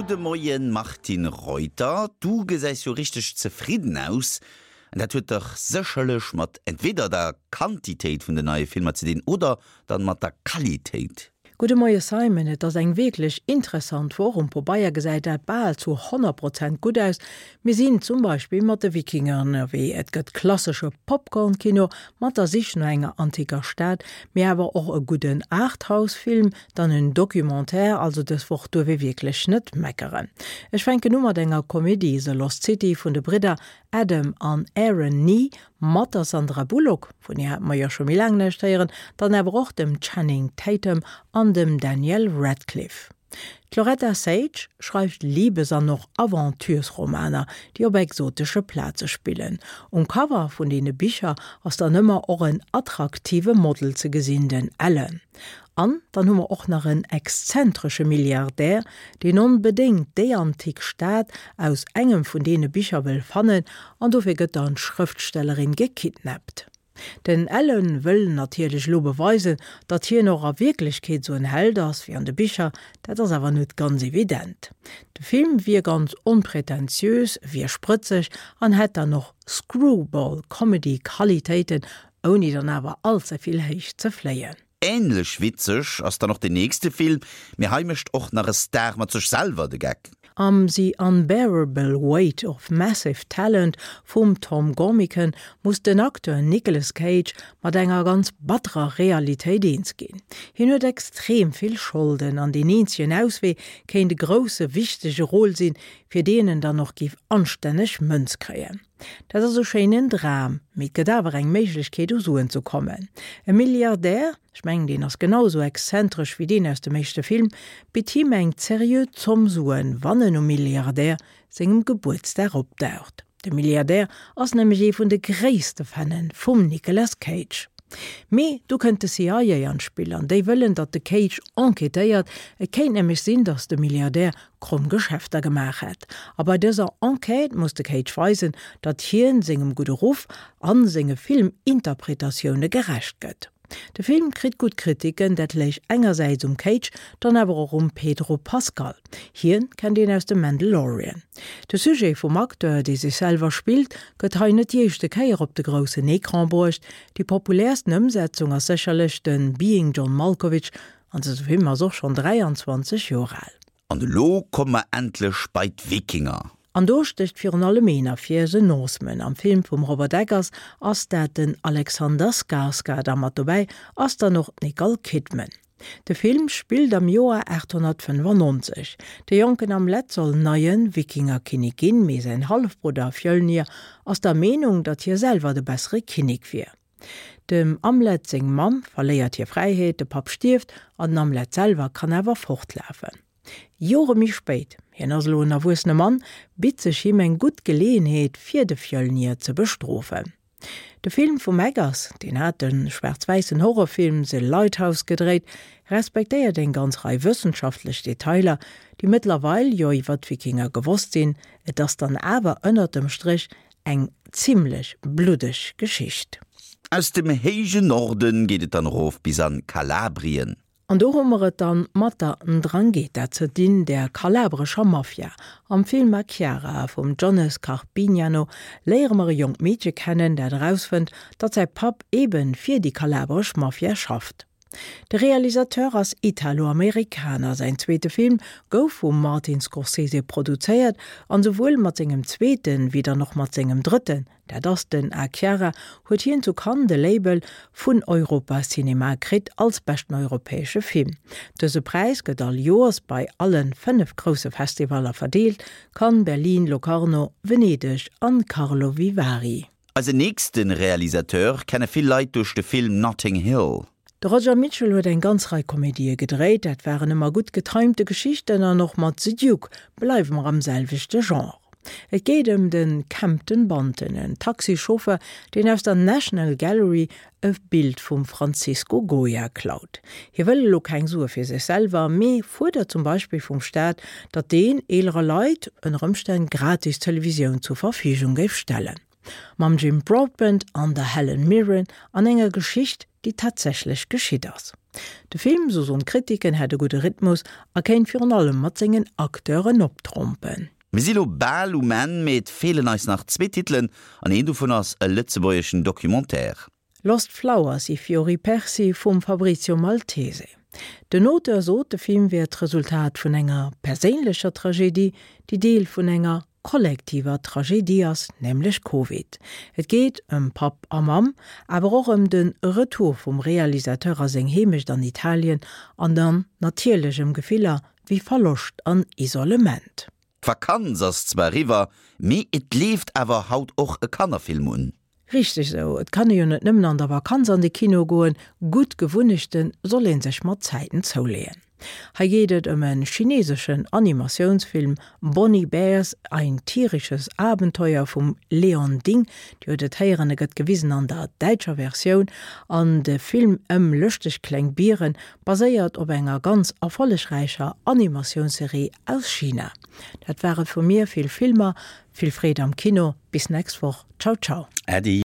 Gudde Moien Martine Reuter, du gesäis jo richteg zefridden aus. An dat huet dach sécherlech mat entweder der Quantitéit vun den neie Filmer ze dinn oder dann mat der Qualitéit. Gudde Moie Simon, et ass eng wierklech interessant Woch. Um Pobeier gesäit dat bal zu 100 Prozent gutt aus. Mir sinn zum Beispill mat de Wikinger ënnerwee, et gëtt klassesche Popcorn-Kino mat der Sich no enger antiker Stad, mee awer och e gudden Arthouse-Film, dann en Documentaire, also dës Woch duerf ee wierklech net meckeren. Ech fänken u mat enger Komedie, The Lost City vun de Bridder Adam an Aaron Nee mat der Sandra Bullock, vun hir hate mer jo scho méi laang näischt héieren, dann awer och dem Channing Tatum an dem Daniel Radcliffe. D'Loretta Sage schreift Libes an och Aventuresromaner, déi op exotesche Plaze spillen. Um Cover vun deene Bicher ass dann ëmmer och en attraktive Model ze gesinn, den Alan. An dann hu mer och nach en exzentresche Milliardär, deen onbedéngt déi antik Stad aus engem vun deene Bicher wëll fannen, an dofir gëtt dann d'Schrëftstellerin gekidnappt. Den Alan wëll natierlech elo beweisen, datt hien och a Wierklechkeet esou en Held ass wéi an de Bicher, dat ass awer net ganz evident. De Film wier ganz onpretentiös, wier sprëtzeg an hätt dann och Screwball-Comedy-Qualitéiten, ouni dann awer allzevill héich ze fléien. Ähnlech witzeg ass dann och den nächste Film, mee hei mécht och nach e Star mat sech selwer de Geck. Am The Unbearable Weight of Massive Talent vum Tom Gormican muss den Acteur Nicolas Cage mat enger ganz batterer Realitéit eens ginn. Hien huet extrem vill Scholden an deen eenzegen Auswee kéint e grousse, wichtege Rôle sinn, fir deen en dann och géif anstänneg Mënz kréien. Dat ass e schéinen Dram, mee et gëtt awer eng Méiglechkeet u Suen ze kommen. E Milliardär, ech mengen deen ass genau esou exzentresch wéi deen aus dem éischte Film, bitt him eng zeriö Zomm Suen, wann en um Milliardär sengem Gebuertsdag opdaucht. De Milliardär ass nämlech ee vun de gréisste Fannen vum Nicolas Cage. Mee du kënnt de CIA an d'Spill an déi wëllen, datt de Cage enquêtéiert. Et kéint nämlech sinn, datt de Milliardär kromm Geschäfter gemaach hätt. A bei dëser Enquête muss de Cage weisen, datt hien sengem gudde Ruff a senge Filminterpretatioune gerecht gëtt. De Film kritt gutt Kritiken, dat léich engersäits um Cage, dann awer och um Pedro Pascal. Hien kennt een aus dem Mandalorian. De Sujet vum Acteur, dee sech selwer spillt, gëtt hei net déi éischte Kéier op de groussen Ecran bruecht. Déi populäersten Ëmsetzung ass sécherlech de Being John Malkovich An dëse Film ass och schonn 23 Joer al. An elo komme mer endlech bei d'Wikinger. An do stécht virun allem een ervir, The Northman. Am Film vum Robert Eggers ass dat den Alexander Skarsgård a mat dobäi ass dann och d'Nicole Kidman. De Film spillt am Joer 895. De jonken Amleth soll neie Wikingerkinnek ginn, mee säin Hallefbrudder Fjölnir ass der Meenung, datt hie selwer de bessere Kinnek wier. Dem Amleth seng Mamm verléiert hir Fräiheet, de Papp stierft an den Amleth selwer kann awer fortlafen. Jore méi spéit, hien ass elo en erwuessene Mann, bitt sech him eng gutt Geleeënheet fir de Fjölnir ze bestrofen. De Film vum Eggers, deen hat de schwaarz-wäissen Horrorfilm The Lighthouse gedréit, respektéiert eng ganz Rei wëssenschaftlech Detailer, déi mëttlerweil jo iwwer d'Wikinger gewosst sinn. Et ass dann awer ënnert dem Stréch Eng zimlech bluddeg Geschicht. Aus dem héijen Norden geet et dann erof bis an Kalabrien. An do hu mer et dann mat der 'Ndrangheta ze dinn, der kalabrescher Mafia. Am Film A Chiara vum Jones Carpignano léiere mer e jonkt Meedche kennen, dat erausfënnt, datt säi Papp eben fir déi kalabresch Mafia schafft. De Realisateur ass Italo-Amerikaner, säin zweete Film gouf vum Martin Scorsese produzéiert an souwuel mat sengem zweeten, wéi dann och mat sengem drëtten, dat ass den A Chiara, huet hien zu Cannes de Label vun Europa Cinema kritt als beschten europäesche Film. Dëse Präis gëtt all Joers bei alle 5 grousse Festivaller verdeelt, Cannes, Berlin, Locarno, Venedeg an Karlovy Vary. Eisen nächste Realisateur kenne vill Leit duerch de Film Notting Hill. De Roger Michell huet eng ganz Rei Komedië gedréit, dat waren ëmmer gutt getimte Geschichten an och mat The Duke bleiwe mer am selwechte Genre. Et geet ëm de Kempton Bunton, en Taxichauffeur, deen aus der National Gallery e Bild vum Francisco Goya klaut. Hie wëll elo keng Sue fir sech selwer, mee fuerdert zum Beispill vum Staat, datt deen eelere Leit ënner Ëmstänn gratis Televisioun zur Verfügung géif stellen. Mam Jim Broadbent an der Helen Mirren an enger Geschicht, déi tatsächlech geschitt ass. De Film, sou soen d'Kritiken, hätt e gudde Rhythmus a kéint virun allem mat sengen Acteuren optrompen. Mir si lo bal um Enn, mee et feelen eis nach zwee Titelen an een dovun ass e lëtzebuergeschen Documentaire. Lost Flowers, I fiori persi vum Fabrizio Maltese. Den Auteur sot, de Film wär d'Resultat vun enger perséinlecher Tragedie, déi Deel vun enger kollektiver Tragedie ass, nämlech Covid. Et geet ëm Papp a Mamm, awer och ëm de Retour vum Realisateur a seng Heemecht an Italien an dann natierlech ëm Gefiller wéi Verloscht an Isolement. D'Vakanz ass zwar eriwwer, mee et leeft awer haut och e Kannerfilm un. Richteg esou, et kann ee jo net nëmmen an der Vakanz an de Kino goen, gutt Gewunnechte soll ee sech mat Zäiten zouleeën. Hei geet et ëm e chineseschen Animatiounsfilm Bonnie Bears, Ein tierisches Abenteuer vum Leon Ding. Dir huet et héieren, e gëtt gewisen an der däitscher Versioun an de Film ëm lëschteg kleng Biere baséiert op enger ganz erfollegräicher Animatiounsserie aus China. Dat war et vu mir, vill Filmer, vill Freed am Kino, bis nächst Woch, ciao ciao. Äddi.